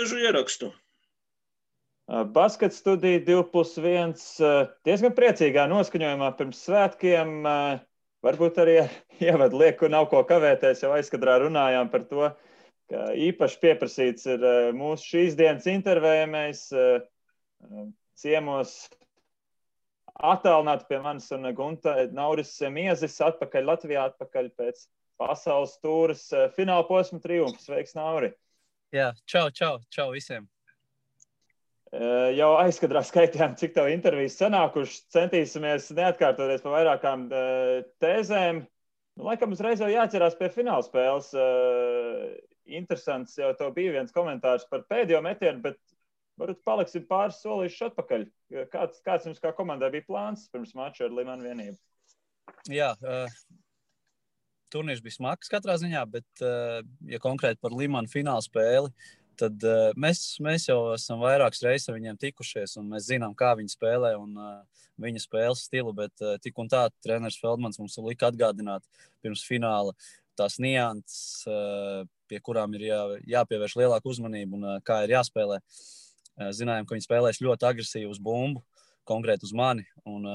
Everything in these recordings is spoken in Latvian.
dažu ierakstu. Basket studija 2+1 diezgan priecīgā noskaņojumā pirms svētkiem. Varbūt arī ievadu lieku, nav ko kavēties, jau aizkadrā runājām par to, ka īpaši pieprasīts ir mūsu šīs dienas intervējamais ciemos attālināti pie manis un Gunta Nauris Miezis atpakaļ Latvijā, atpakaļ pēc pasaules tūras fināla posma triumfa. Sveiks, Nauri! Jā, čau visiem! Jau aizkadrā skaitījām, cik tev intervijas sanākušas. Centīsimies neatkārtoties pa vairākām tēzēm. Laikam uzreiz jau jāķerās pie fināla spēles. Interesants jau tev bija viens komentārs par pēdējo metienu, bet varbūt paliksim pāris solīšus atpakaļ. Kāds jums kā komandai bija plāns pirms mača ar Limanu vienību? Jā, turnīrs bija smags katrā ziņā, bet ja konkrēti par Limanu fināla spēli, tad mēs jau esam vairākas reizes ar viņiem tikušies, un mēs zinām, kā viņi spēlē un viņa spēles stilu, bet tik un tā treneris Feldmans mums lika atgādināt pirms fināla tās nianses, pie kurām ir jāpievērš lielāka uzmanība un kā ir jāspēlē. Zinājām, ka viņi spēlēs ļoti agresīvi uz bumbu, konkrēti uz mani, un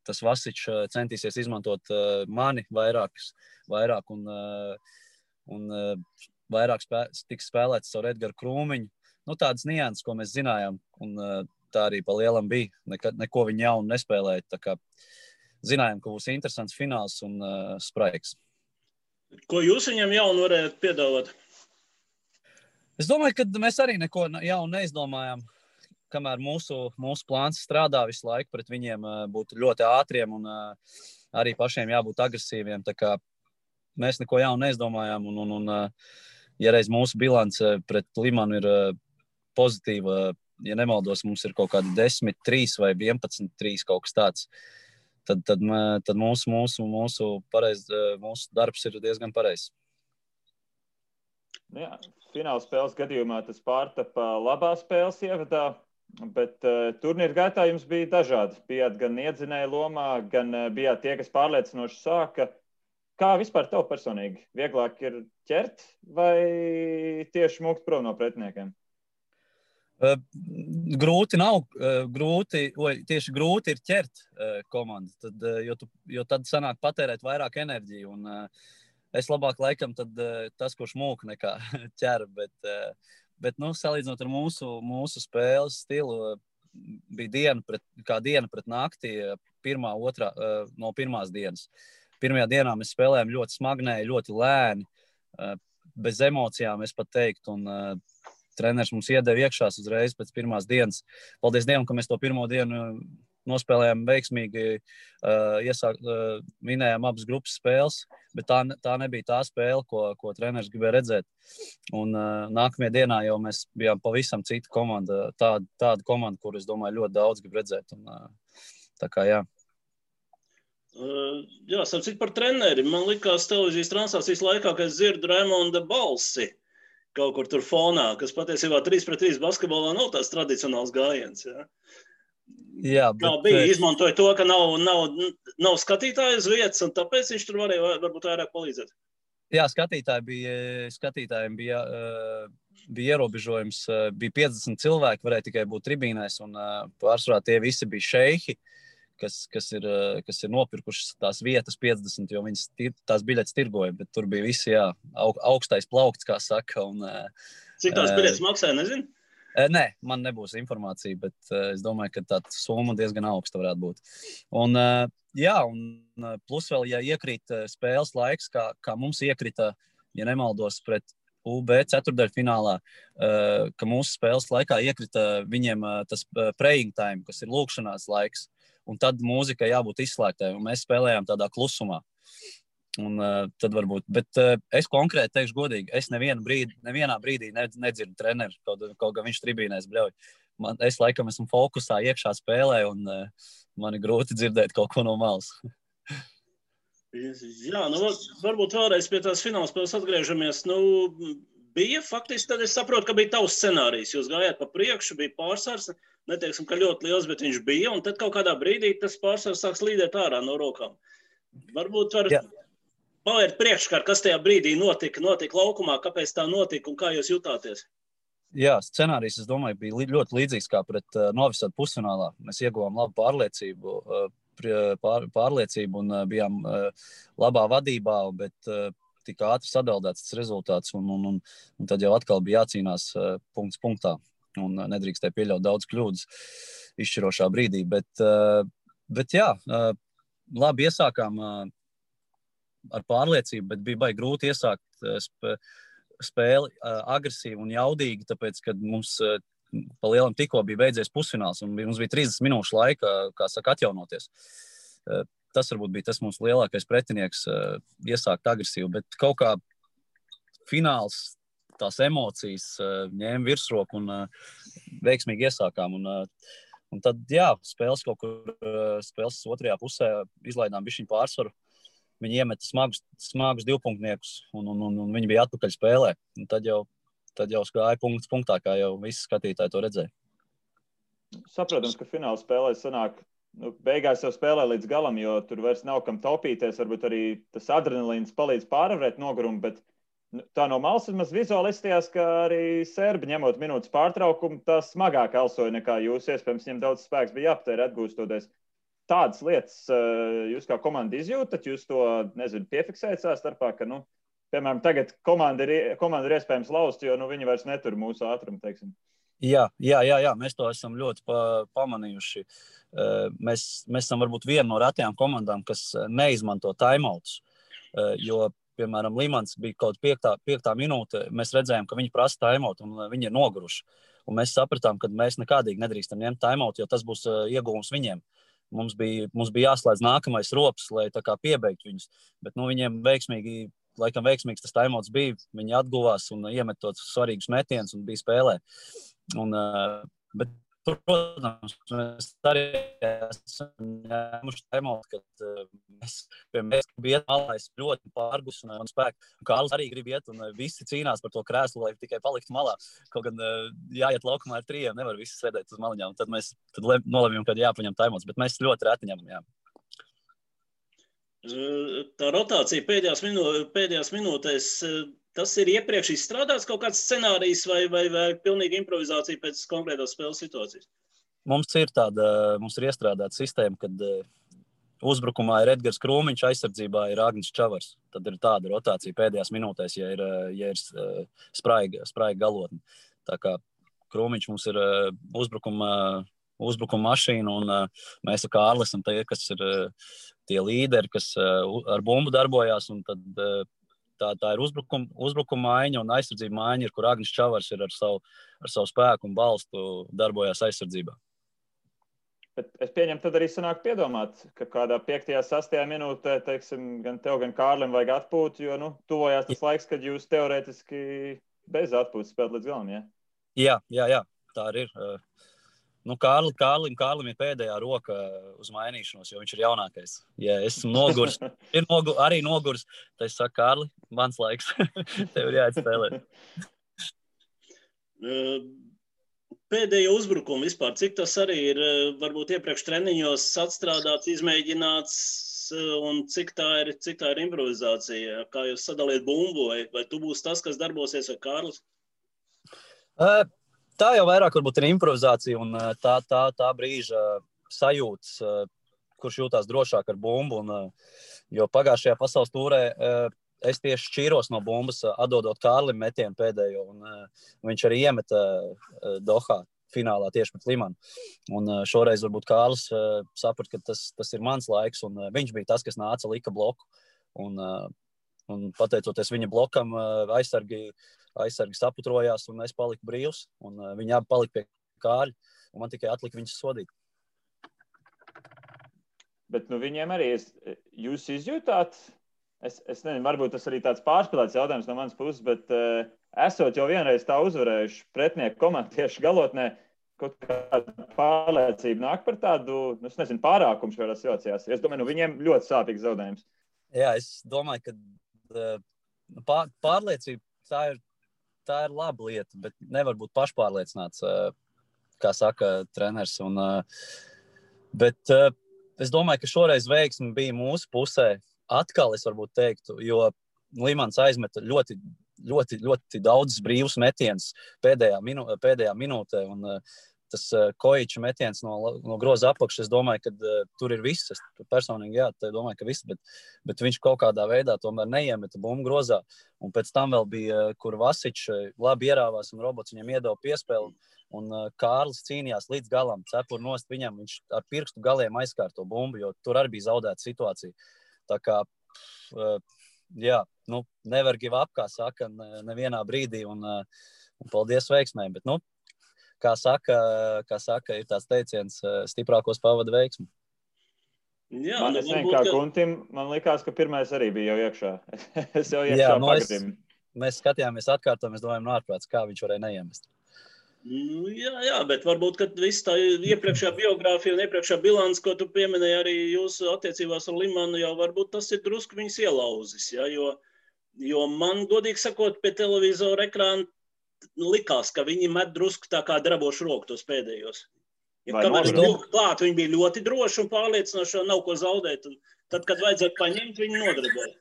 tas Vasičs centīsies izmantot mani vairāk un vairāk tiks spēlēts caur Edgaru Krūmiņu. Tādas nianses, ko mēs zinājām, un tā arī pa lielam bija. Neko viņi jaunu nespēlēja, tā kā zinājām, ka būs interesants fināls un spraigs. Ko jūs viņam jaunu varētu piedāvāt? Es domāju, ka mēs arī neko jaunu neizdomājām, kamēr mūsu plāns strādā visu laiku pret viņiem būt ļoti ātriem un arī pašiem jābūt agresīviem. Tā kā mēs neko jaunu neizdomājām un ja reiz mūsu bilance pret Limanu ir pozitīva, ja nemaldos, mums ir kaut kādi 10-3 vai 11-3 kaut kas tāds, tad mūsu darbs ir diezgan pareizs. Jā, fināla spēles gadījumā tas pārtapa labā spēles ievadā, bet turnīra gaitā jums bija dažādi. Bijāt gan iedzinēja lomā, gan bijāt tie, kas pārliecinoši sāka. Kā vispār tev personīgi? Vieglāk ir ķert vai tieši mūkt prom no pretiniekiem? Grūti nav. Tieši grūti ir ķert komandu, jo tad sanāk patērēt vairāk enerģiju. Un es labāk laikam tad tas, kurš mūk nekā ķer, bet salīdzinot ar mūsu spēles stilu, bija diena pret nakti, no pirmās dienas. Pirmajā dienā mēs spēlējām ļoti smagnēji, ļoti lēni, bez emocijām, es pat teiktu, un treneris mums iedeva iekšās uzreiz pēc pirmās dienas. Paldies Dievam, ka mēs to pirmo dienu nospēlējām veiksmīgi, vinējām abas grupas spēles, bet tā nebija tā spēle, ko treneris gribēja redzēt. Un nākamajā dienā jau mēs bijām pavisam cita komanda, tāda komanda, kur es domāju ļoti daudz grib redzēt. Un, tā kā jā. Jā, sapcīt par treneri. Man likās televīzijas translācijas laikā, ka es dzirdu Raimonda balsi kaut kur tur fonā, kas patiesībā 3-3 basketbolā nav tās tradicionāls gājiens. Jā. Jā, kā bija, izmantoja to, ka nav skatītāju uz vietas, un tāpēc viņš tur varēja varbūt vairāk palīdzēt. Jā, skatītājiem bija ierobežojums. Bija 50 cilvēki, varēja tikai būt tribīnēs, un pārsvarā tie visi bija šeihi, kas ir nopirkuši tās vietas 50, jo viņas tās biļetes tirgoja, bet tur bija visi, jā, augstais plaukts, kā saka. Un, cik tās biļetes maksāja, nezinu? Nē, man nebūs informācija, bet es domāju, ka tā summa diezgan augsta varētu būt. Un, jā, un plus vēl, ja iekrīt spēles laiks, kā mums iekrita, ja nemaldos, pret UB ceturtdaļfinālā, ka mūsu spēles laikā iekrita viņiem tas praying time, kas ir lūkšanās laiks, un tad mūzika jābūt izslēgtai, un mēs spēlējām tādā klusumā. Un tad varbūt, bet es konkrēti teikšu godīgi, es nevienā brīdī nedzirdu treneru, kaut kā viņš tribīnēs bļauj. Es laikam esmu fokusā iekšā spēlē, un man ir grūti dzirdēt kaut ko no malas. Jā, varbūt vēlreiz pie tās fināla spēles atgriežamies. Bija faktiski, tad es saprotu, ka bija tavs scenārijs. Jūs gājāt pa priekšu, bija pārsvars, neteiksim, ka ļoti liels, bet viņš bija, un tad kaut kādā brīdī tas pārsvars sāks līdēt ārā no rokām. Varbūt var pavērt priekškārt, kas tajā brīdī notika laukumā, kāpēc tā notika un kā jūs jutāties? Jā, scenārijs, es domāju, bija ļoti līdzīgs kā pret Novisadu pusfinālā. Mēs ieguvām labu pārliecību un bijām labā vadībā, bet tik ātri sadaldēts tas rezultāts, un tad jau atkal bija jācīnās punkts punktā, un nedrīkstēja pieļaut daudz kļūdas izšķirošā brīdī. Bet jā, labi iesākām ar pārliecību, bet bija baigi grūti iesākt spēli agresīvi un jaudīgi, tāpēc, kad mums pa lielam tikko bija beidzies pusfināls, un mums bija 30 minūšu laika, kā saka, atjaunoties. Tas varbūt bija tas mūsu lielākais pretinieks iesākt agresīvi, bet kaut kā fināls, tās emocijas ņēma virsroku un veiksmīgi iesākām. Un tad, jā, spēles otrajā pusē izlaidām bišķiņu pārsvaru. Viņi iemeta smagus divpunktniekus, un viņi bija atpakaļ spēlē. Un tad jau gāja punkts punktā, kā jau visi skatītāji to redzēja. Saprotams, ka fināla spēlē sanāk, beigās jau spēlē līdz galam, jo tur vairs nav kam taupīties, varbūt arī tas adrenalīns palīdz pārvarēt nogurumu, bet tā no malas vismaz vizuālistījās, ka arī serbi ņemot minūtes pārtraukumu, tā smagāk elsoja nekā jūs, iespējams, viņiem daudz spēks bija jāpatēr atgūstoties. Tādas lietas jūs kā komanda izjūtat, jūs to, piefiksējat savā starpā, ka, piemēram, tagad komanda ir iespējams laust, jo, viņi vairs netur mūsu ātrumu, teiksim. Jā, mēs to esam ļoti pamanījuši. Mēs esam varbūt viena no retajām komandām, kas neizmanto timeouts, jo, piemēram, Limans bija kaut 5. minūte, mēs redzējām, ka viņi prasa timeout un viņi ir noguruši. Un mēs sapratām, ka mēs nekādīgi nedrīkstam ņemt timeout, jo tas būs ieguvums viņiem. Mums bija jāslēdz nākamais rops, lai tā kā piebeigtu viņus. Bet viņiem veiksmīgs tas timeouts bija. Viņi atguvās un iemet tos svarīgus metienus un bija spēlē. Bet, protams, mēs arī esam ņēmuši timeout, kad mēs bija malais ļoti pārgus un spēku. Kārlis arī grib iet un visi cīnās par to krēslu, lai tikai paliktu malā. Kaut gan jāiet laukumā ar 3, nevar visi sēdēt uz maliņām. Tad mēs nolemjam, kad jāpaņem timeouts, bet mēs ļoti reti ņemam, jā. Tā rotācija pēdējās minūtēs, tas ir iepriekš izstrādāts kaut kāds scenārijs vai pilnīgi improvizācija pēc konkrētās spēles situācijas? Mums ir iestrādāta sistēma, kad uzbrukumā ir Edgars Krūmiņš, aizsardzībā ir Agnis Čavars. Tad ir tāda rotācija pēdējās minūtēs, ja ir spraiga galotne. Tā kā Krūmiņš mums ir uzbrukuma mašīna, un mēs ar Kārli esam tie, kas ir tie līderi, kas ar bumbu darbojās, un tad tā ir uzbrukuma maiņa, un aizsardzība maiņa ir, kur Agnis Čavars ir ar savu spēku un balstu darbojās aizsardzībā. Bet es pieņemu, tad arī sanāk piedomāt, ka kādā 5. 6. minūtē, teiksim, gan tev, gan Kārlim vajag atpūt, jo, tuvojās tas laiks, kad jūs teorētiski bez atpūtas spēlēt līdz galam, ja? Jā, tā arī ir. Kārlim ir pēdējā roka uz mainīšanos, jo viņš ir jaunākais. Ja esmu nogurs, arī nogurs, tad es saku, Kārli, mans laiks, tev ir jāatspēlē. Pēdējo uzbrukumu vispār, cik tas arī ir varbūt iepriekš treniņos atstrādāts, izmēģināts, un cik tā ir improvizācija? Kā jūs sadaliet bumbu, vai tu būsi tas, kas darbosies, vai Kārlis? Tā jau vairāk varbūt ir improvizācija un tā brīža sajūtas, kurš jūtās drošāk ar bumbu. Jo pagājušajā pasaules tūrē es tieši šķīros no bumbas, atdodot Kārlim metienu pēdējo, un viņš arī iemeta Dohā finālā tieši pret Limanu. Un šoreiz varbūt Kārlis saprat, ka tas ir mans laiks, un viņš bija tas, kas nāca, lika bloku. Un pateicoties viņa blokam, aizsargi saputrojās, un es paliku brīvs, un viņi abi palika pie Kārļa, un man tikai atlika viņus sodīt. Bet viņiem arī jūs izjūtāt, es nezinu, varbūt tas arī tāds pārspēlēts jautājums no manas puses, bet esot jau vienreiz tā uzvarējuši pretinieku komandu tieši galotnē, kaut kāda pārliecība nāk par tādu, es nezinu, pārākumu šajās situācijās. Es domāju, viņiem ļoti sāpīgs zaudējums. Jā, es domāju, ka pārliecība tā ir laba lieta, bet nevar būt pašpārliecināts, kā saka treneris. Bet es domāju, ka šoreiz veiksme bija mūsu pusē. Atkal es varbūt teiktu, jo Limans aizmeta ļoti ļoti, ļoti daudz brīvus metienus pēdējā minūtē. Un tas Kojiča metiens no groza apakšas, es domāju, ka tur ir viss. Es personīgi domāju, ka viss, bet viņš kaut kādā veidā tomēr neiemeta bumbu grozā. Un pēc tam vēl bija, kur Vasičs labi ierāvās un robots viņam iedeva piespēli. Un Kārlis cīnījās līdz galam, cepur nost viņam, viņš ar pirkstu galiem aizskāra to bumbu, jo tur arī bija zaudēta situācija. Tā kā, nevar give up, kā saka, nevienā brīdī, un paldies veiksmēm. Bet, kā saka, ir tāds teiciens, stiprākos pavada veiksmi. Jā, man likās, ka pirmais arī bija jau iekšā. Es jau iekšā pagadīju. Mēs skatījāmies atkārtām, mēs domājam, ārprāts, kā viņš varēja neiemest. Jā, bet varbūt, kad viss tā iepriekšējā biogrāfija un iepriekšējā bilants, ko tu pieminēji arī jūsu attiecībās ar Limanu, jau varbūt tas ir drusku viņus ielauzis, ja? Jo man, godīgi sakot, pie televizora ekrāna likās, ka viņi met drusku tā kā drabošu roku tos pēdējos. Kamēr viņi klāt, viņi bija ļoti droši un pārliecinoši, nav ko zaudēt. Un tad, kad vajadzētu paņemt, viņi nodraboja.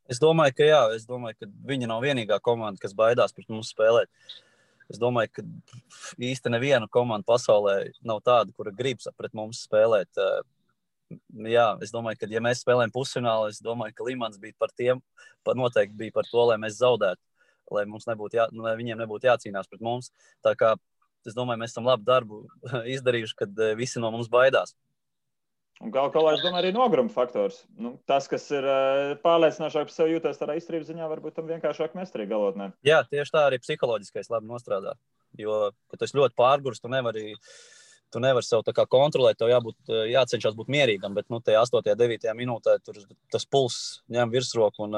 Es domāju, ka viņi nav vienīgā komanda, kas baidās pret mums spēlēt. Es domāju, ka īsti neviena komanda pasaulē nav tāda, kura grib pret mums spēlēt. Jā, es domāju, ka ja mēs spēlējam pusfinālu, es domāju, ka Limans bija noteikti bija par to, lai mēs zaudētu, lai viņiem nebūtu jācīnās pret mums. Tā kā es domāju, mēs esam labu darbu izdarījuši, kad visi no mums baidās. Un galu galā, es domāju, arī nogruma faktors. Tas, kas ir pārliecinošāk par sevi jūtas tādā izturības ziņā, varbūt tam vienkāršāk mest arī galotnē. Jā, tieši tā arī psiholoģiskais labi nostrādā. Jo, kad tu ļoti pārgurs, tu nevari sev tā kā kontrolēt, tev jācenšas būt mierīgam, bet tajā 8. 9. minūtē tur tas pulss ņem virsroku un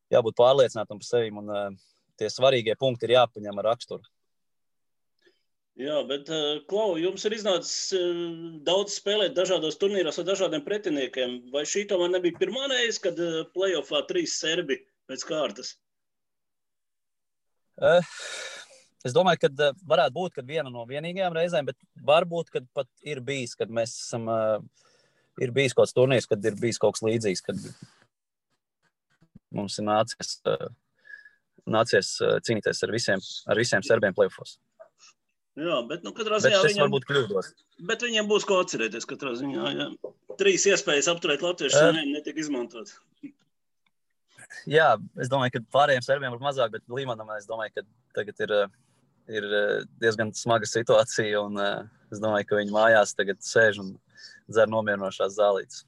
jābūt pārliecinātam par sevi. Un tie svarīgie punkti ir jāpaņem ar raksturu. Jā, bet, Klau, jums ir iznācis daudz spēlēt dažādos turnīros ar dažādiem pretiniekiem. Vai šī tomēr nebija pirmā reize, kad playoffā 3 serbi pēc kārtas? Es domāju, ka varētu būt, kad viena no vienīgajām reizēm, bet varbūt, kad pat ir bijis, kad mēs esam, ir bijis kaut kāds turnīrs, kad ir bijis kaut kas līdzīgs, kad mums ir nācies cīnīties ar visiem serbiem playoffos. Jā, bet katrā ziņā viņiem būs ko atcerēties katrā ziņā. Jā. 3 iespējas apturēt latviešu netika izmantot. Jā, es domāju, ka pārējiem serbiem ir mazāk, bet Limanam es domāju, ka tagad ir diezgan smaga situācija un es domāju, ka viņi mājās tagad sēž un dzer nomierinošās zālītes.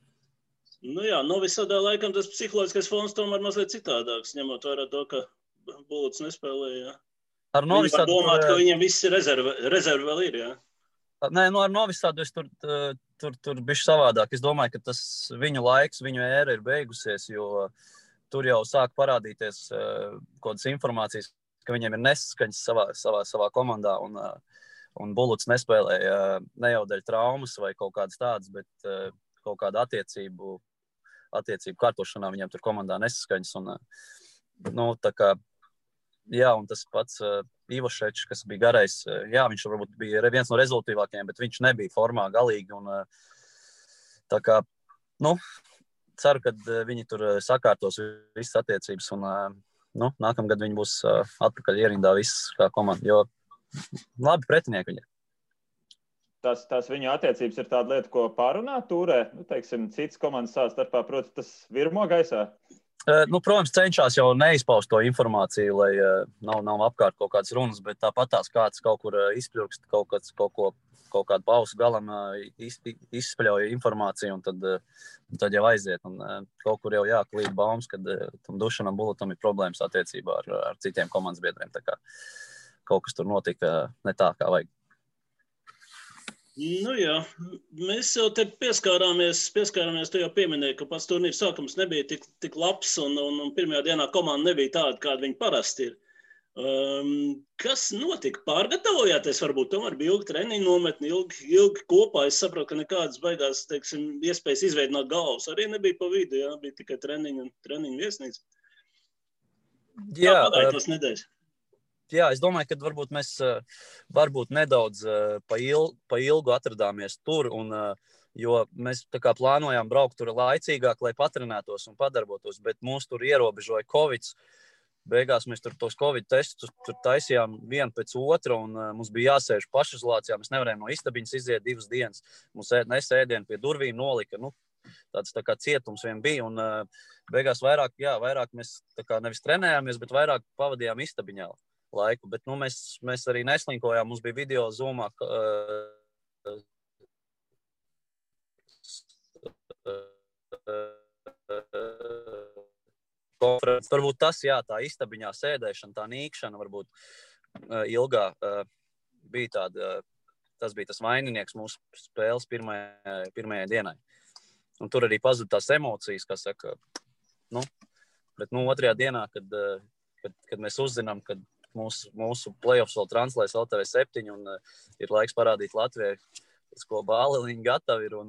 Jā, Novi Sadā laikam tas psiholoģiskais fons tomēr mazliet citādāks, ņemot vērā to, ka Buluts nespēlēja. Viņi var domāt, ka viņiem viss rezervi vēl ir, jā? Nē, ar Novi Sadu es tur bišķi savādāk. Es domāju, ka tas viņu laiks, viņu ēra ir beigusies, jo tur jau sāk parādīties kaut kādas informācijas, ka viņiem ir nesaskaņas savā komandā, un Buluts nespēlēja ne jau dēļ traumas vai kaut kādas tādas, bet kaut kāda attiecību kārtošanā viņiem tur komandā nesaskaņas. Un, tā kā, jā, un tas pats Ivošečs, kas bija garais, jā, viņš varbūt bija viens no rezultīvākajiem, bet viņš nebija formā galīgi. Un, tā kā, ceru, ka viņi tur sakārtos visas attiecības un nākamgad viņi būs atpakaļ ierindā viss kā komanda, jo labi pretinieki viņi ir. Tas viņu attiecības ir tāda lieta, ko pārunāt turē, teiksim, citas komandas savā starpā, proti, tas virmo gaisā? Protams, cenšas jau neizpaust to informāciju, lai nav apkārt kaut kādas runas, bet tāpat kāds kaut kur izpļurkst kaut kādu pausu galam izspļauja informāciju, un tad jau aiziet. Un kaut kur jau jāklīd baumas, kad tam Dušanam Bulutam ir problēmas attiecībā ar citiem komandas biedriem. Tā kā kaut kas tur notika ne tā, kā vajag. Jā, mēs jau te pieskārāmies, tu jau pieminēji, ka pats turnīrs sākums nebija tik labs un pirmajā dienā komanda nebija tāda, kāda viņi parasti ir. Kas notika? Pārgatavojāties? Varbūt tomēr bija ilgi treniņu nometni, ilgi kopā. Es saprotu, ka nekādas baigās, teiksim, iespējas izveidināt galvas arī nebija pa vidu, jā, bija tikai treniņu viesnīca. Jā, kā pagāja tas nedēļas? Jā, es domāju, ka varbūt mēs nedaudz pa ilgu atradāmies tur, jo mēs tā kā plānojām braukt tur laicīgāk, lai patrenētos un padarbotos, bet mūs tur ierobežoja Covid. beigās mēs tur tos Covid testus tur taisījām vienu pēc otra, un mums bija jāsēž pašizolācijā. Mēs nevarējām no istabiņas iziet 2 dienas. Mums nesēdienu pie durvīm nolika. Tāds tā kā cietums vien bija, un beigās vairāk mēs tā kā nevis trenējāmies, bet vairāk pavadījām istabiņā laiku. Bet mēs arī neslinkojām. Mums bija video Zoomā. Varbūt tas, tā istabiņā sēdēšana, tā nīkšana, varbūt ilgā bija tāda, tas bija tas vaininieks mūsu spēles pirmajai dienai. Un tur arī pazuda tās emocijas, kas saka, bet otrajā dienā, kad mēs uzzinām, kad mūsu playoffs vēl translēs LTV 7 un ir laiks parādīt Latvijai, ko bāliņi gatavi ir, un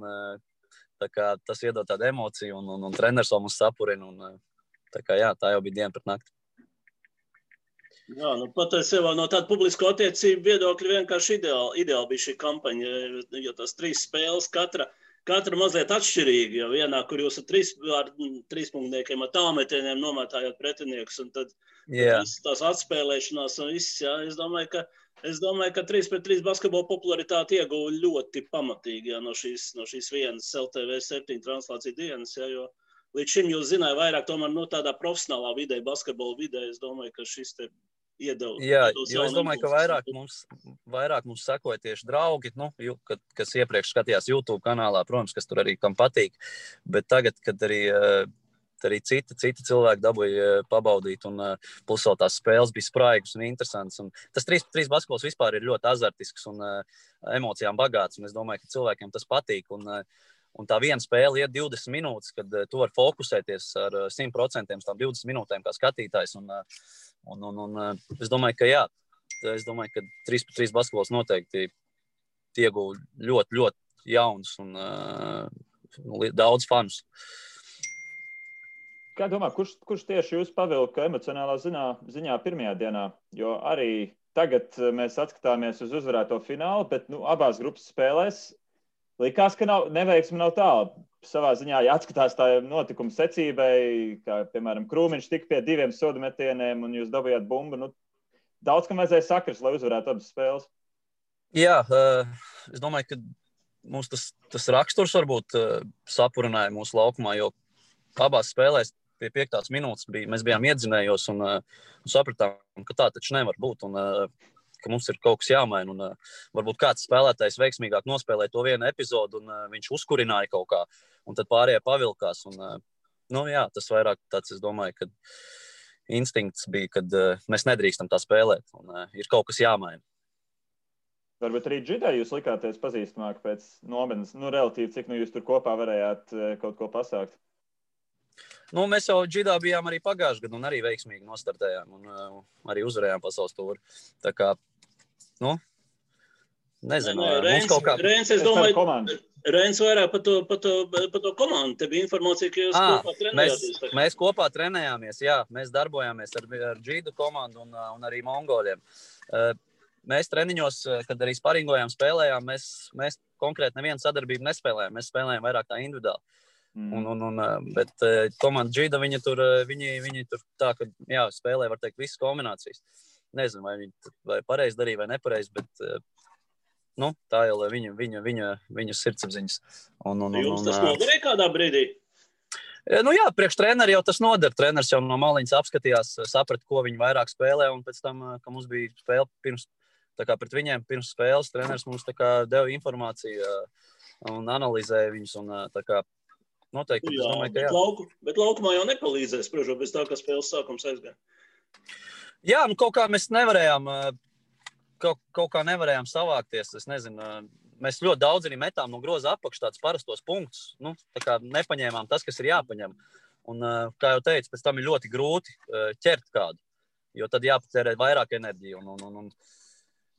tā kā tas iedod tādu emociju, un treneris vēl mums sapurina, un tā kā tā jau bija diena pret nakti. Jā, patiesībā no tāda publisko attiecību viedokļa vienkārši ideāli bija šī kampaņa, jo tās 3 spēles katra mazliet atšķirīga, jo vienā, kur jūs ar 3 punktniekiem, ar tālmetieniem nomētājot pretiniekus, un tad tās atspēlēšanās un viss, es domāju, ka 3-3 basketbola popularitāti ieguva ļoti pamatīgi no šīs vienas LTV 7 translācija dienas, jo līdz šim jūs zināja vairāk tomēr tādā profesionālā vidē, basketbola vidē, es domāju, ka šis te iedod. Jo es domāju, ka vairāk mums sekoja tieši draugi, kas iepriekš skatījās YouTube kanālā, protams, kas tur arī kam patīk, bet tagad, kad arī citi cilvēki dabūja pabaudīt, un plus vēl tās spēles bija spraigas un interesants. Un tas 3-3 basketbols vispār ir ļoti azartisks un emocijām bagāts, un es domāju, ka cilvēkiem tas patīk. Un tā viena spēle iet 20 minūtes, kad tu vari fokusēties ar 100% tām 20 minūtēm kā skatītājs. Un es domāju, ka 3-3 basketbols noteikti ieguva ļoti, ļoti jauns un daudz fanus. Kā domā, kurš tieši jūs pavilka emocionālā ziņā pirmajā dienā? Jo arī tagad mēs atskatāmies uz uzvarēto finālu, bet abās grupas spēlēs likās, ka neveiksme nav tāla. Savā ziņā, ja atskatās tā notikuma secībai, kā, piemēram, Krūmiņš tika pie 2 sodu metieniem un jūs dabūjāt bumbu, daudz, kam vajadzēja sakrist, lai uzvarētu abas spēles. Jā, es domāju, ka mums tas raksturs varbūt sapurināja mūsu laukumā, jo abās spēlēs pie 5. minūtes mēs bijām iedzinējos un sapratām, ka tā taču nevar būt. Un ka mums ir kaut kas jāmaina, un varbūt kāds spēlētājs veiksmīgāk nospēlēja to vienu epizodu, un viņš uzkurināja kaut kā, un tad pārējie pavilkās, un tas vairāk tāds, es domāju, ka instinkts bija, kad mēs nedrīkstam tā spēlēt, un ir kaut kas jāmaina. Varbūt arī Džidai jūs likāties pazīstamāk pēc nometnes, relatīvi, cik jūs tur kopā varējāt kaut ko pasākt? Mēs jau Džidā bijām arī pagājušajā gadā un arī veiksmīgi nostartējām un arī uzvarējām pasaules tūri. Tā kā, nezinu. Reins, es domāju, Reins vairāk par to komandu. Te bija informācija, ka jūs kopā trenējāties. Mēs kopā trenējāmies, jā. Mēs darbojāmies ar Džidu komandu un arī mongoļiem. Mēs treniņos, kad arī sparingojām, spēlējām, mēs konkrēti nevienu sadarbību nespēlējām. Mēs spēlējām vairāk tā individuāli. Bet komanda Džida, viņi tur tā, ka spēlē, var teikt, visas kombinācijas. Nezinu, vai viņi pareizi darīja vai nepareizi, bet tā jau viņu sirdsapziņas. Jums tas noderēja kādā brīdī? Priekš treneri jau tas noder. Treneris jau no maliņas apskatījās, saprata, ko viņi vairāk spēlē, un pēc tam, ka mums bija spēle pret viņiem pirms spēles, treneris mums deva informāciju un analizēja viņus, un tā kā noteikti, es domāju, ka jā. Bet laukumā jau nepalīdzēs, protams, bez tā, ka spēles sākums aizgāja. Jā, kaut kā mēs nevarējām, kaut kā nevarējām savākties, es nezinu, mēs ļoti daudz arī metām no groza apakš tādus parastos punktus, tā kā nepaņēmām tas, kas ir jāpaņem. Un, kā jau teicu, pēc tam ir ļoti grūti ķert kādu, jo tad jāpatērē vairāk enerģiju.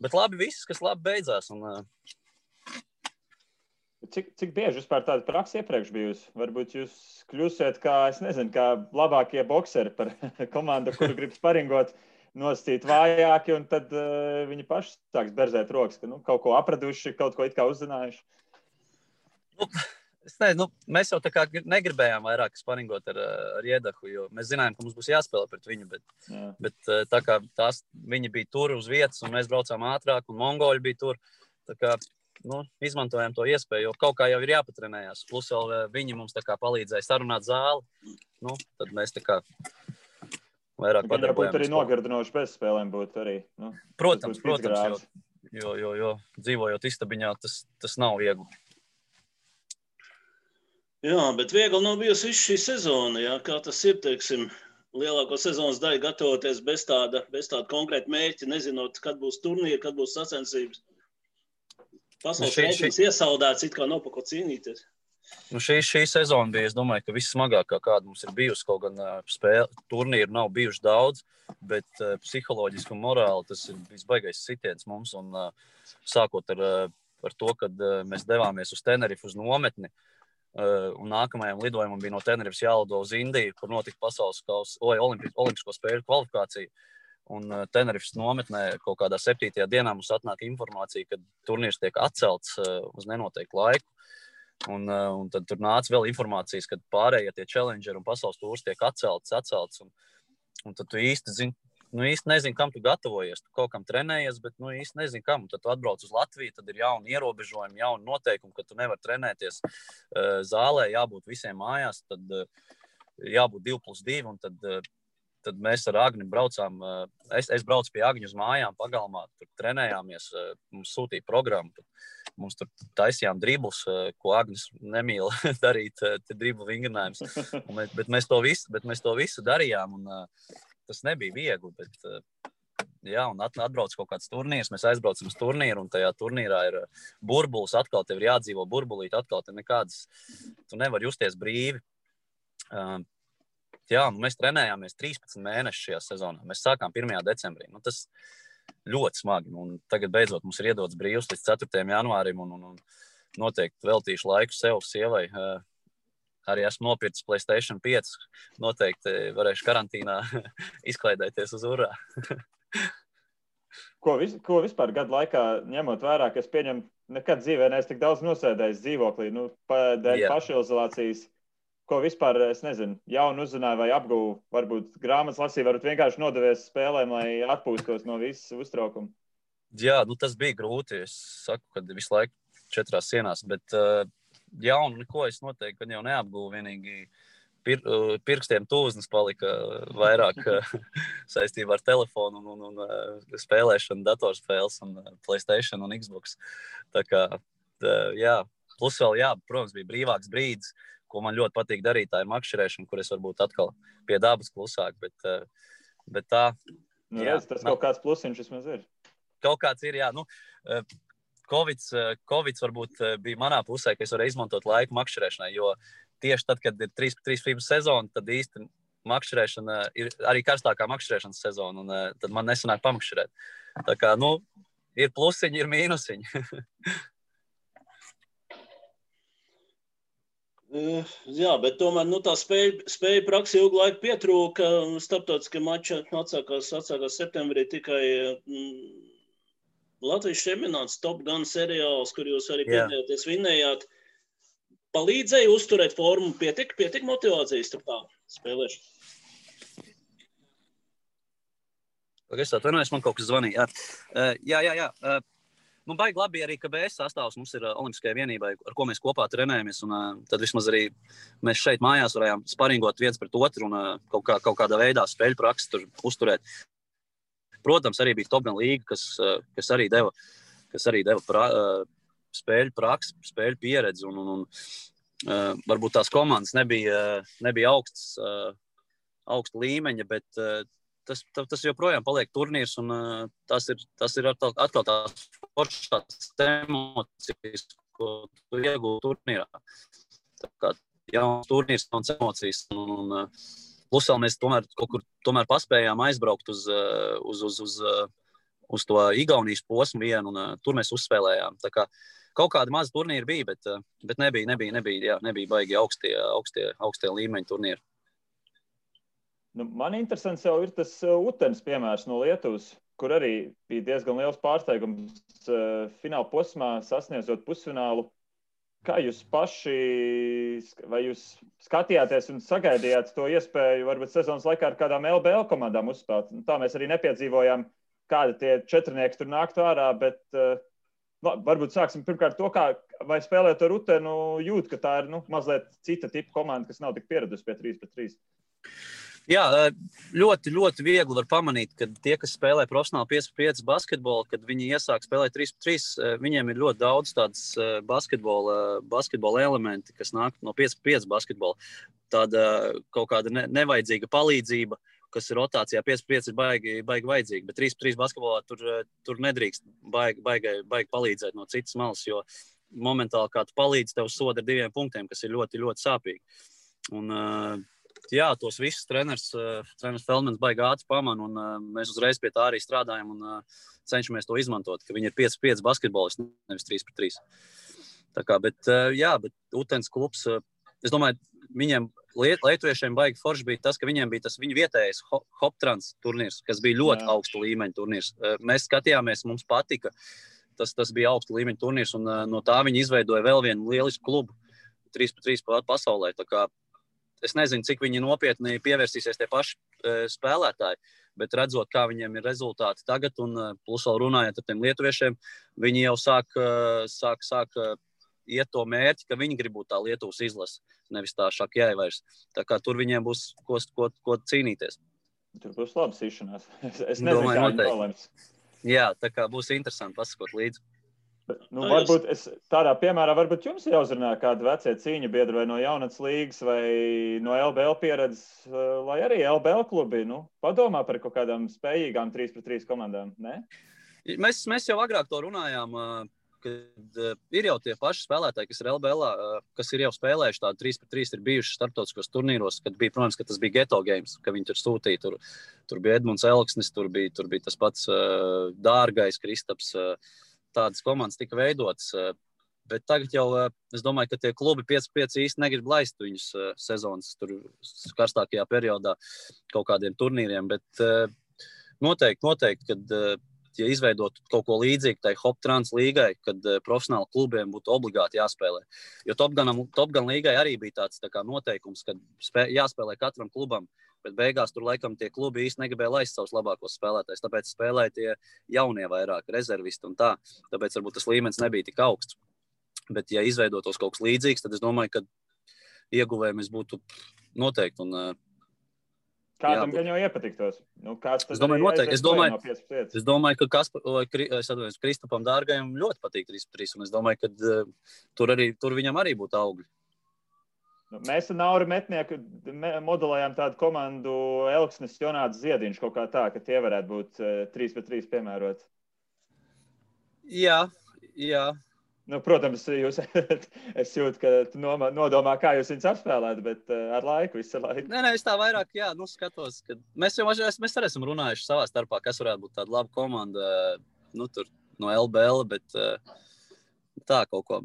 Bet labi viss, kas labi beidzās. Cik bieži vispār tāda praksa iepriekš bijusi? Varbūt jūs kļūsiet kā labākie bokseri par komandu, kuru grib sparingot, nosacīt vājāki, un tad viņi paši sāks berzēt rokas, ka kaut ko apraduši, kaut ko it kā uzzinājuši. Mēs jau tā kā negribējām vairāk sparingot ar Iedahu, jo mēs zinājām, ka mums būs jāspēlē pret viņu, bet tā kā viņi bija tur uz vietas un mēs braucām ātrāk un mongoļi bija tur, tā kā izmantojām to iespēju, jo kaut kā jau ir jāpatrenējās. Plus vēl viņi mums tā kā palīdzēja sarunāt zāli, tad mēs tā kā vairāk padarbojāmies. Būtu arī nogirdinoši bez spēlēm būtu arī. Protams, jo dzīvojot istabiņā, tas nav viegli. Jā, bet viegli nav bijusi visu šī sezona, jā, kā tas ir, teiksim, lielāko sezonas daļu gatavoties bez tāda konkrēta mērķa, nezinot, kad būs turnīri, kad būs sacensības. Pasaules reitings iesaldēts, it kā nav pa ko cīnīties. Šī sezona bija, es domāju, ka vissmagākā, kāda mums ir bijusi, kaut gan turnīru nav bijuši daudz, bet psiholoģiski un morāli tas ir visbaigais sitiens mums, un sākot ar to, kad mēs devāmies uz Tenerifu uz nometni, un nākamajam lidojumam bija no Tenerifas jālido uz Indiju, kur notika pasaules olimpisko spēļu kvalifikācija. Un Tenerifas nometnē kaut kādā 7. dienā mums atnāk informācija, ka turnīrs tiek atcelts uz nenoteiktu laiku. Un tad tur nāca vēl informācijas, ka pārējie tie challengeri un pasaules tūrs tiek atcelts. Un tad tu īsti nezini, kam tu gatavojies. Tu kaut kam trenējies, bet īsti nezini, kam. Un tad tu atbrauc uz Latviju, tad ir jauni ierobežojumi, jauni noteikumi, ka tu nevari trenēties zālē, jābūt visiem mājās, tad jābūt 2+2, un tad mēs ar Agni braucām. Es braucu pie Agņa uz mājām pagalmā, tur trenējāmies, mums sūtīja programmu. Mums tur taisījām driblus, ko Agnis nemīl darīt, driblu vingrinājums. Bet mēs to visu darījām, un tas nebija viegli, bet un atbrauc kaut kāds turnīrs, mēs aizbraucam uz turnīru, un tajā turnīrā ir burbulis, atkal tev ir jādzīvo burbulīt, atkal tev nekādas, tu nevar justies brīvi. Mēs trenējāmies 13 mēnešus šajā sezonā, mēs sākām 1. decembrī, tas ļoti smagi, un tagad beidzot mums ir iedots brīvs līdz 4. janvārim, un noteikti veltīšu laiku sev, sievai. Arī esmu nopircis PlayStation 5. Noteikti varēšu karantīnā izklaidēties uz urā. Ko vispār gadu laikā, ņemot vērā, ka es pieņemu, nekad dzīvē neesmu tik daudz nosēdējis dzīvoklī, dēļ pašizolācijas, ko vispār, es nezinu, jaunu uzzināju vai apguvu, varbūt grāmatas lasīju, varbūt vienkārši nodevies spēlēm, lai atpūstos no visas uztraukuma. Jā, tas bija grūti. Es saku, ka visu laiku 4 sienās, bet jaunu neko es noteikti jau neapguvu, vienīgi pirkstiem tūznes palika vairāk saistībā ar telefonu un spēlēšanu, datorspēles un PlayStation un Xbox. Tā kā, plus vēl, protams, bija brīvāks brīdis, ko man ļoti patīk darīt, tā ir makšķerēšana, kur es varbūt atkal pie dabas klusāk, bet tā... Tas kaut kāds plusiņš vismaz ir. Kaut kāds ir, Covids varbūt bija manā pusē, ka es varēju izmantot laiku makšķerēšanai, jo tieši tad, kad ir 3x3 FIBA sezona, tad īsti makšķerēšana ir arī karstākā makšķerēšanas sezona, un tad man nesanāk pamakšķerēt. Tā kā, ir plusiņi, ir mīnusiņi. Jā, bet tomēr tā spēja praksi ilgu laiku pietrūka. Starptautiskie mači atsākās septembrī tikai Latvijas čempionāts Top Gun seriāls, kur jūs arī piedalījāties, vinnējāt. Palīdzēja uzturēt formu, pietik motivācijas tur tā spēlēšana? Es atvainojos, man kaut kas zvanīja. Jā. Baigi labi arī, ka BS sastāvs mums ir olimpiskajai vienībai, ar ko mēs kopā trenējamies, un tad vismaz arī mēs šeit mājās varējām sparingot viens pret otru un kaut kādā veidā spēļu praksi tur uzturēt. Protams, arī bija Top Gun līga, kas arī deva spēļu praksi, spēļu pieredzi, un varbūt tās komandas nebija augsta līmeņa, bet tas joprojām paliek turnīrs, un tas ir atkal tās foršās emocijas, ko tu iegūti turnīrā. Tā kā jauns turnīrs, jauns emocijas, un plus vēl mēs kaut kur paspējām aizbraukt uz to Igaunijas posmu vienu, un tur mēs uzspēlējām. Tā kā kaut kādi mazi turnīri bija, bet nebija baigi augstie līmeņi turnīri. Man interesants jau ir tas Utenes piemērs no Lietuvas, kur arī bija diezgan liels pārsteigums fināla posmā sasniedzot pusfinālu. Kā jūs paši, vai jūs skatījāties un sagaidījāt to iespēju varbūt sezonas laikā ar kādām LBL komandām uzspēlēt? Tā mēs arī nepiedzīvojām, kādi tie četrnieki tur nāktu ārā, bet varbūt sāksim pirmkārt to, vai spēlēt ar Rutenu jūt, ka tā ir mazliet cita tipa komanda, kas nav tik pieradusi pie 3-3. Jā, ļoti, ļoti viegli var pamanīt, ka tie, kas spēlē profesionāli 5-5 basketbolu, kad viņi iesāk spēlēt 3-3, viņiem ir ļoti daudz tādas basketbola elementi, kas nāk no 5-5 basketbola. Tāda kaut kāda nevajadzīga palīdzība, kas ir rotācijā 5-5 ir baigi vajadzīga, bet 3-3 basketbolā tur nedrīkst baigi palīdzēt no citas malas, jo momentāli kā tu palīdzi, tev soda ar 2 punktiem, kas ir ļoti, ļoti sāpīgi. Un, jā, tos visus treneris Feldmans baigi ātri pamana, un mēs uzreiz pie tā arī strādājam un cenšamies to izmantot, ka viņi ir 5-5 basketbolisti, nevis 3-3. Tā kā, bet Utens klubs, es domāju, viņiem lietuviešiem baigi forši bija tas, ka viņiem bija tas viņu vietējais Hoptrans turnīrs, kas bija ļoti augsta līmeņa turnīrs. Mēs skatījāmies, mums patika, tas bija augsta līmeņa turnīrs, un no tā viņi izveidoja vēl vienu lielisku klubu 3-3 pasaulē. Tā kā es nezinu, cik viņi nopietni pievērsīsies tie paši spēlētāji, bet redzot, kā viņiem ir rezultāti tagad, un plus vēl runājot ar tiem lietuviešiem, viņi jau sāk iet to mērķi, ka viņi grib būt tā Lietuvas izlase, nevis tā Šakjai vairs. Tā kā tur viņiem būs ko cīnīties. Tur būs labi sīšanās. Es nezinu, kā viņi nolems. Jā, tā kā būs interesanti pasakot līdzi. Varbūt tādā piemērā varbūt jums ir jāuzrunā kādi vecie cīņu biedri vai no jaunatnes līgas vai no LBL pieredzes, lai arī LBL klubi padomā par kaut kādām spējīgām 3-3 komandām, ne? Mēs jau agrāk to runājām, kad ir jau tie paši spēlētāji, kas ir LBL, kas ir jau spēlējuši tādu 3-3, ir bijuši starptautiskos turnīros, kad bija, protams, ka tas bija Geto Games, ka viņi tur sūtīja, tur bija Edmunds Elksnis, tur bija tas pats Dārgais, Kristaps, tādas komandas tika veidotas, bet tagad jau, es domāju, ka tie klubi 5-5 īsti negrib laist viņus sezonas tur karstākajā periodā kaut kādiem turnīriem, bet noteikti, kad ja izveidot kaut ko līdzīgu tai Hoptrans līgai, kad profesionāli klubiem būtu obligāti jāspēlē. Jo Top Gun līgai arī bija tāds tā kā noteikums, kad jāspēlē katram klubam, bet beigās tur laikam tie klubi īsti negribēja laist savus labākos spēlētājus, tāpēc spēlēja tie jaunie vairāk, rezervisti un tā. Tāpēc varbūt tas līmenis nebija tik augsts. Bet ja izveidotos kaut kas līdzīgs, tad es domāju, ka ieguvējumi būtu noteikti. Un, kādam gan jau iepatiktos? Es domāju, noteikti. Es domāju, ka Kristapam Dārgajam ļoti patīk 3-3, un es domāju, ka tur viņam arī būtu augļi. Mēs ar Nauru Metnieku modelējām tādu komandu Elksnis, Jonāts Ziediņš kaut kā tā, ka tie varētu būt 3-3 piemērot. Jā. Protams, es jūtu, ka tu nodomā, kā jūs viņus apspēlēt, bet ar laiku, visu laiku. Nē, es tā vairāk, skatos, ka mēs arī esam runājuši savā starpā, kas varētu būt tāda laba komanda, tur no LBL, bet tā kaut ko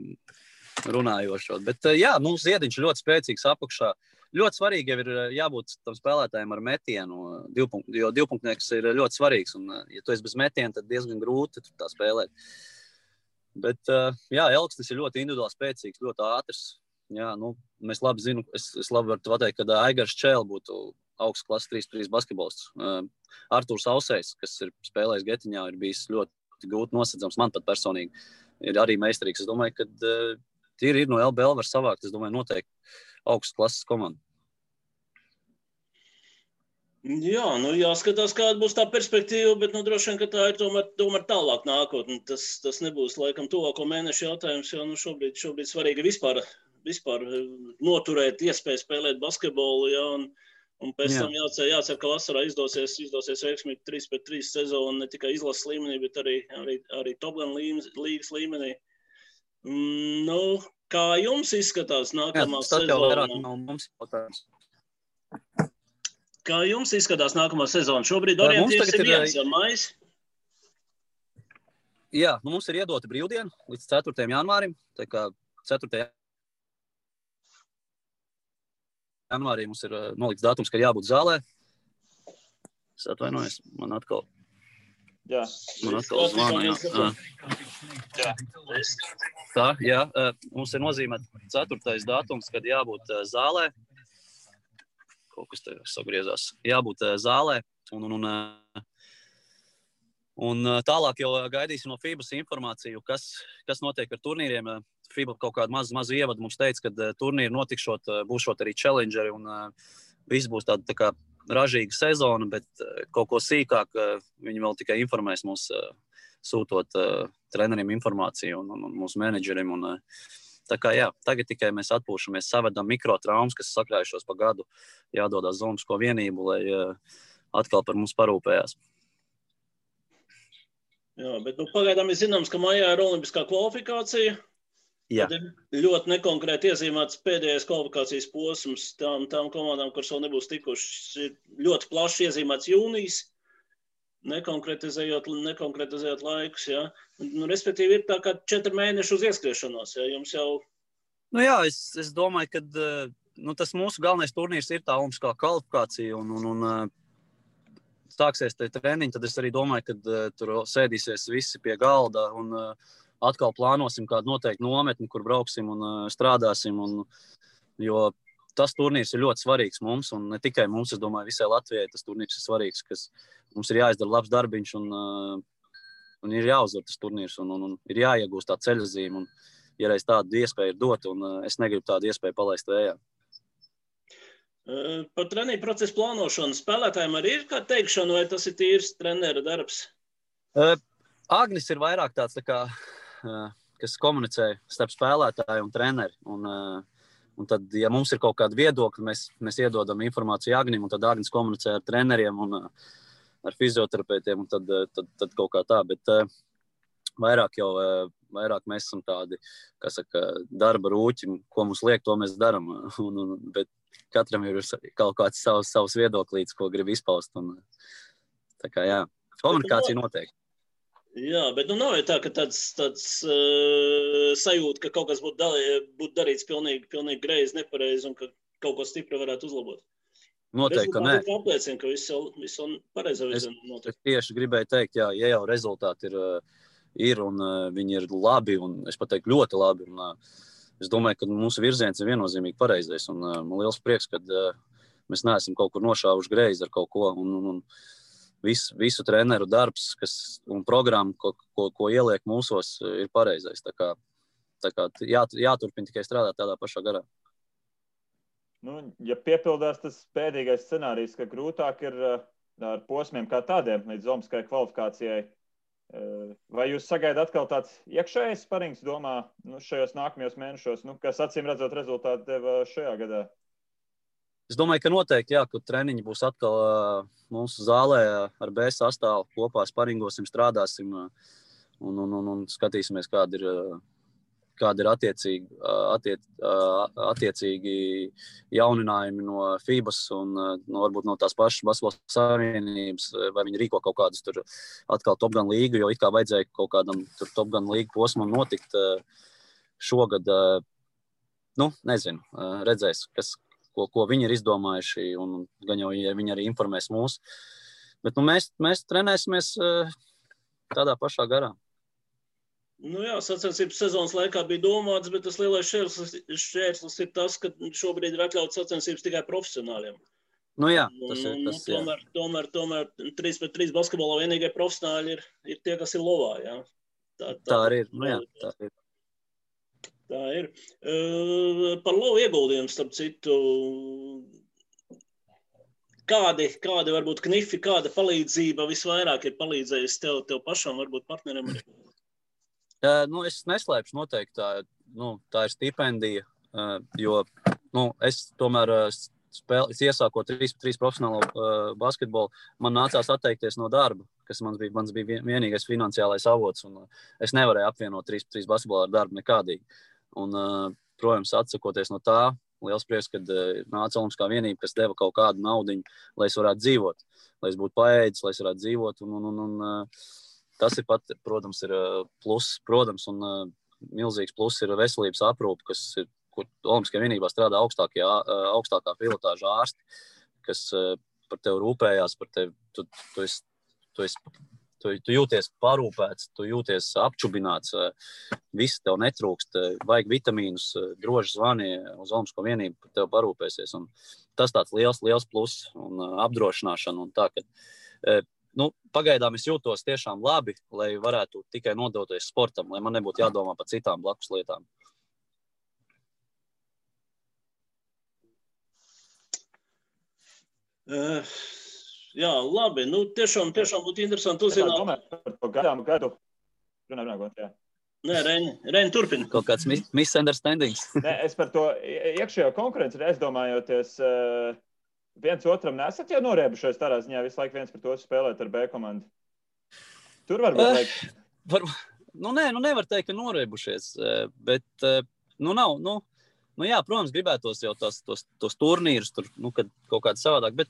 runājošot. Bet Ziediņš ļoti spēcīgs apakšā. Ļoti svarīgi jau ir jābūt tam spēlētājiem ar metienu, jo divpunktnieks ir ļoti svarīgs. Un, ja tu esi bez metiena, tad diezgan grūti tā spēlēt. Bet, Elksnis ir ļoti individuāli spēcīgs, ļoti ātrs. Jā, mēs labi zinu, es labi varu pateikt, ka Aigars Čēl būtu augsts klases 3-3 basketbolists. Artūrs Ausējs, kas ir spēlējis Getiņā, ir bijis ļoti grūti nosedzams, man pat personīgi. Ir arī meistarīgs. Es domāju, ka ir no LBL var savākt, es domāju, noteikti augstas klases komanda. Jā, jāskatās, kāda būs tā perspektīva, bet droši vien, ka tā ir tomēr tālāk nākotne. Tas nebūs laikam tuvāko mēnešu jautājums, jo šobrīd svarīgi vispār noturēt iespēju spēlēt basketbolu, un pēc tam jācer, ka vasarā izdosies veiksmīgi 3-3 sezonu ne tikai izlases līmenī, bet arī Top Gun līgas līmenī. Kā jums izskatās nākamā sezona? Kā jums izskatās nākamā sezona? Šobrīd orientīvs ir viens, maijs? Jā, mums ir iedota brīvdiena līdz 4. janvārim. Tā kā 4. janvārī mums ir nolikts datums, ka jābūt zālē. Es atvainojos, man atkal... Jā. Man atkal zvana, jā. Tā, jā, mums ir nozīmēts 4. datums, kad jābūt zālē. Kaut kas te sagriezās. Jābūt zālē. Un tālāk jau gaidīsim no FIBAS informāciju, kas notiek ar turnīriem. FIBA kaut kādu mazu ievadu mums teica, ka turnīri notikšot, būšot arī challengeri un viss būs tā kā ražīga sezona, bet kaut ko sīkāk viņi vēl tikai informēs mūs, sūtot treneriem informāciju un mūsu menedžeriem. Tā kā jā, tagad tikai mēs atpūšamies, savedam mikrotraumas, kas sakrājušos pa gadu, jādodās zonisko vienību, lai atkal par mums parūpējās. Jā, bet pagaidām ir zināms, ka maijā ir olimpiskā kvalifikācija. Jā. Tad ir ļoti nekonkrēti iezīmēts pēdējais kvalifikācijas posms tām komandām, kuras vēl nebūs tikušas. Ir ļoti plaši iezīmēts jūnijas, nekonkretizējot laikus. Ja? Respektīvi ir tā kā 4 mēneši uz ieskriešanos. Ja? Jums jau... Jā, es domāju, ka tas mūsu galvenais turnīrs ir tā olimpiskā kvalifikācija un sāksies tie treniņi, tad es arī domāju, ka tur sēdīsies visi pie galda un atkal plānosim kādu noteiktu nometni, kur brauksim un strādāsim. Jo tas turnīrs ir ļoti svarīgs mums, un ne tikai mums, es domāju, visai Latvijai tas turnīrs ir svarīgs, kas mums ir jāizdara labs darbiņš un ir jāuzvar tas turnīrs un ir jāiegūst tā ceļazīme. Un, ja reiz tādu iespēju ir dot, un es negribu tādu iespēju palaist vējā. Par treniņu procesu plānošanu spēlētājiem arī ir kā teikšana, vai tas ir tīrs trenera darbs? Agnis ir vairāk tāds, kas komunicē starp spēlētāju un treneri. Un tad, ja mums ir kaut kāda viedokļa, mēs iedodam informāciju Agnim, un tad Agnis komunicē ar treneriem un ar fizioterapeitiem, un tad kaut kā tā. Bet vairāk mēs esam tādi, darba rūķi, ko mums liek, to mēs daram. Bet katram ir kaut kāds savs viedoklīts, ko grib izpaust. Tā kā jā, komunikācija noteikti. Jā, bet nav tā, ka tāds sajūta, ka kaut kas būtu darīts pilnīgi greizi, nepareizi un ka kaut ko stipri varētu uzlabot. Noteikti, ka nē. Rezultāti apliecina, ka viss pareizā virzienā notiek. Es tieši gribēju teikt, jā, ja jau rezultāti ir un viņi ir labi, un es pateiktu ļoti labi. Es domāju, ka mūsu virziens ir viennozīmīgi pareizais. Man liels prieks, ka mēs neesam kaut kur nošāvuši greizi ar kaut ko. Un visu treneru darbs un programma, ko ieliek mūsos, ir pareizais. Tā kā jāturpina tikai strādāt tādā pašā garā. Ja piepildās tas pēdīgais scenārijs, ka grūtāk ir ar posmiem kā tādiem līdz olimpiskai kvalifikācijai, vai jūs sagaidāt atkal tāds iekšējais sparings domā šajos nākamajos mēnešos, kas acīm redzot rezultātu deva šajā gadā? Es domāju, ka noteikti, jā, ka treniņi būs atkal mūsu zālē ar B sastāvu kopā sparingosim, strādāsim un skatīsimies, kādi ir attiecīgi jauninājumi no FIBAS un varbūt no tās pašas Basketbola Savienības, vai viņi rīko kaut kādus tur atkal Top Gun līgu, jo it kā vajadzēja kaut kādam tur Top Gun līgu posmam notikt šogad. Nezinu, redzēs, ko viņi ir izdomājuši, un gan jau viņi arī informēs mūs. Bet mēs trenēsimies tādā pašā garā. Jā, sacensības sezonas laikā bija domāts, bet tas lielais šķērslis ir tas, ka šobrīd ir atļauts sacensības tikai profesionāļiem. Jā, tas ir tas, jā. Tomēr 3-3 basketbolā vienīgie profesionāļi ir tie, kas ir lovā, jā. Tā arī ir, jā, tā ir. Tā ir. Par lovu ieguldījumu, starp citu, kādi varbūt knifi, kāda palīdzība visvairāk ir palīdzējusi tev pašam, varbūt partneriem arī? Es neslēpšu noteikti, tā ir stipendija, jo es tomēr iesākot 3-3 profesionālo basketbolu, man nācās atteikties no darba, kas mans bija vienīgais finansiālais avots, un es nevarēju apvienot 3-3 basketbolu ar darbu nekādīgi. Un, protams, atsakoties no tā, liels prieks, kad nāca Olimpiskā vienība, kas deva kaut kādu naudiņu, lai es varētu dzīvot, lai es būtu paēdis, lai es varētu dzīvot, un tas ir pat, protams, ir pluss, protams, un milzīgs pluss ir veselības aprūpe, kur Olimpiskajā vienībā strādā augstākā pilotāža ārsti, kas par tevi rūpējās, par tevi, tu tu jūties parūpēts, tu jūties apčubināts, viss tev netrūkst, vajag vitamīnus, droši zvani uz Olimpisko vienību, tev parūpēsies. Un tas tāds liels pluss un apdrošināšana un tā, ka pagaidām es jūtos tiešām labi, lai varētu tikai nodoties sportam, lai man nebūtu jādomā par citām blakus lietām. Jā, labi. Tiešām būtu interesanti uzzināt. Par to gadu. Nē, Reini, turpini. Kaut kāds misunderstandings. Nē, es par to iekšējo konkurenci aizdomājoties, viens otram nesat jau noriebušies tādā ziņā, visu laiku viens par to spēlēt ar B komandu. Tur varbūt nevar teikt, ka noriebušies, bet nav. Jā, protams, gribētos jau tos turnīrus, tur, kad kaut kāds savādāk, bet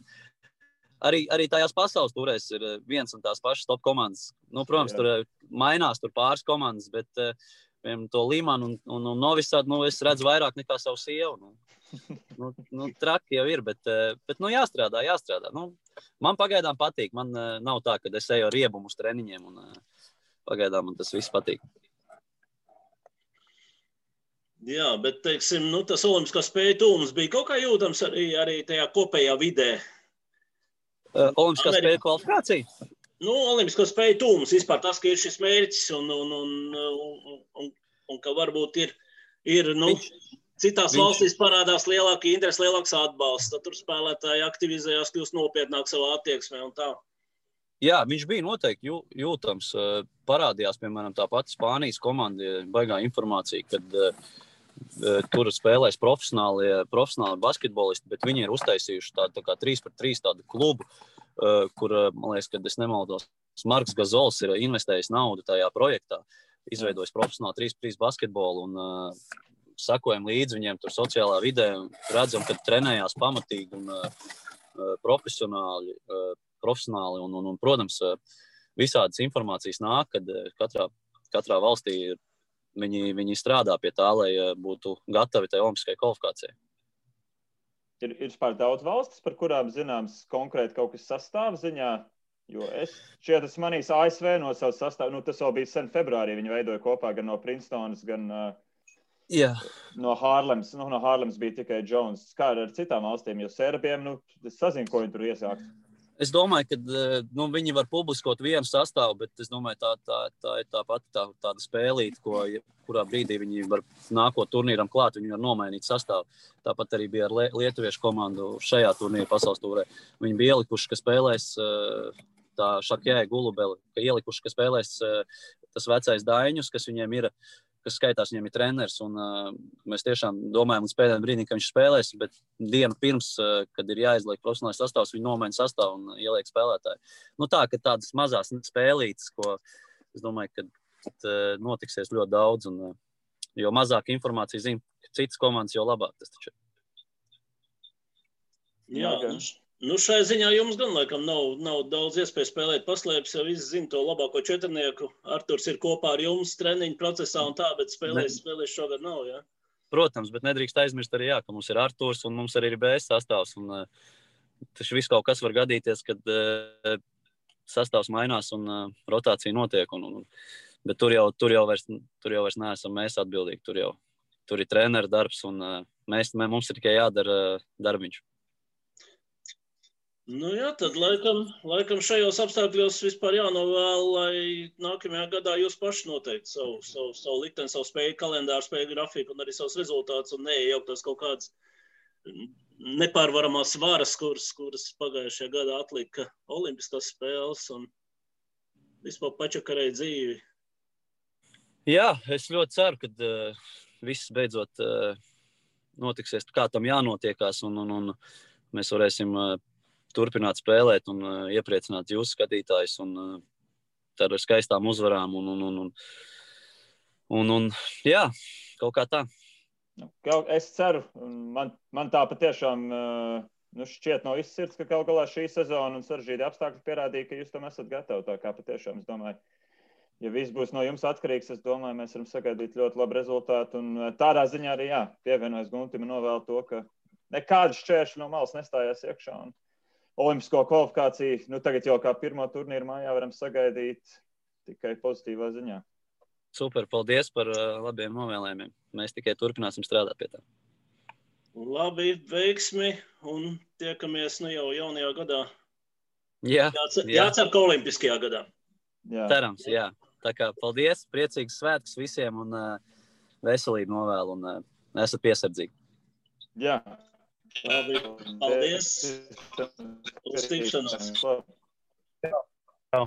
arī tajās pasaules turēs ir viens un tās pašas top komandas. Protams, tur mainās tur pāris komandas, bet to Limanu un Novi Sadu, es redzu vairāk nekā savu sievu. Traki jau ir, bet jāstrādā. Man pagaidām patīk. Man nav tā, ka es eju ar riebumu uz treniņiem un pagaidām man tas viss patīk. Jā, bet, teiksim, tas olimpiskā spēju tūms bija kaut kā jūtams arī tajā kopējā vidē. Olimpiskā spēju kvalifikācija? Olimpiskā spēju tūms, vispār tas, ka ir šis mērķis un ka varbūt ir citās valstīs parādās lielāka interese, lielāks atbalsts, tad tur spēlētāji aktivizējās, kļūst nopietnāk savā attieksmē un tā. Jā, viņš bija noteikti jūtams. Parādījās, piemēram, tā pati Spānijas komanda, baigā informācija, kad tur spēlēs profesionāli basketbolisti, bet viņi ir uztaisījuši tādu tā kā 3-3 tādu klubu, kur, man liekas, kad es nemaldos, Marks Gazols ir investējis naudu tajā projektā, izveidojis profesionāli 3-3 basketbolu un sakojam līdzi viņiem tur sociālā vidē un redzam, ka trenējās pamatīgi un profesionāli un, protams, visādas informācijas nāk, kad katrā valstī viņi strādā pie tā, lai būtu gatavi tai olimpiskajai kvalifikācijai. Ir vispār daudz valstis, par kurām zināms konkrēti kaut kas sastāv ziņā, jo es manīs ASV no savas sastāvu, tas vēl bija sen februārī, viņi veidoja kopā gan no Princetonas, gan no Hārlems. No Hārlems bija tikai Jones. Kā ar citām valstīm, jo Serbiem, es sazinu, ko viņi tur iesākt. Es domāju, ka viņi var publiskot vienu sastāvu, bet es domāju, tā ir tāda spēlīte, kurā brīdī viņi var nākot turnīram klāt, viņi var nomainīt sastāvu. Tāpat arī bija ar lietuviešu komandu šajā turnīra pasaules tūrē. Viņi bija ielikuši, ka spēlēs tā Šakjē Gulubeli, ka ielikuši, ka spēlēs tas vecais Daiņus, kas viņiem ir, kas skaitās, viņiem ir treneris, un mēs tiešām domājam līdz pēdējiem brīdim, ka viņš spēlēs, bet dienu pirms, kad ir jāizliek profesionālais sastāvs, viņi nomaina sastāvu un ieliek spēlētāju. Tā, ka tādas mazās spēlītes, ko es domāju, ka notiksies ļoti daudz, un jo mazāk informācija zina, ka citas komandas, jo labāk tas taču. Jā, šai ziņā jums gan laikam nav daudz iespēju spēlēt paslēpes, jo visi zina to labāko četrnieku. Arturs ir kopā ar jums treniņu procesā un tā, bet spēlēs šogad nav, jā? Protams, bet nedrīkst aizmirst arī, ka mums ir Arturs un mums arī ir BS sastāvs. Un taču viss kaut kas var gadīties, kad sastāvs mainās un rotācija notiek. Bet tur jau vairs neesam mēs atbildīgi. Tur ir treneru darbs un mums ir tikai jādara darbiņš. Jā, tad laikam šajos apstākļos vispār jānovēl, lai nākamajā gadā jūs paši noteikti savu likteni, savu spēju kalendāru, spēju grafiku un arī savus rezultātus un neiejauktos kaut kādas nepārvaramās varas, kuras pagājušajā gadā atlika olimpiskās spēles un vispār pačakarēja dzīvi. Jā, es ļoti ceru, ka viss beidzot notiksies, kā tam jānotiekās un mēs varēsim turpināt spēlēt un iepriecināt jūsu skatītājus un ar skaistām uzvarām un jā, kaut kā tā. Es ceru, man tā patiešām šķiet no visas sirds, ka kaut galā šī sezona un sarežģīti apstākļi pierādīja, ka jūs tam esat gatavi. Tā kā patiešām, es domāju, ja viss būs no jums atkarīgs, es domāju, mēs varam sagaidīt ļoti labu rezultātu un tādā ziņā arī, pievienojas Guntim un novēl to, ka nekādas šķēršļi no malas nestājās iekšā un olimpisko kvalifikāciju. Nu, tagad jau kā pirmo turnīru mājā varam sagaidīt tikai pozitīvā ziņā. Super, paldies par labiem novēlējumiem. Mēs tikai turpināsim strādāt pie tā. Labi, veiksmi un tiekamies jau jaunajā gadā. Jā. Jācer, ka olimpiskajā gadā. Jā. Cerams, jā. Tā kā paldies, priecīgs svētkus visiem un veselību novēlu un esat piesardzīgi. Jā. Labi, paldies. Uz tikšanos. Čau.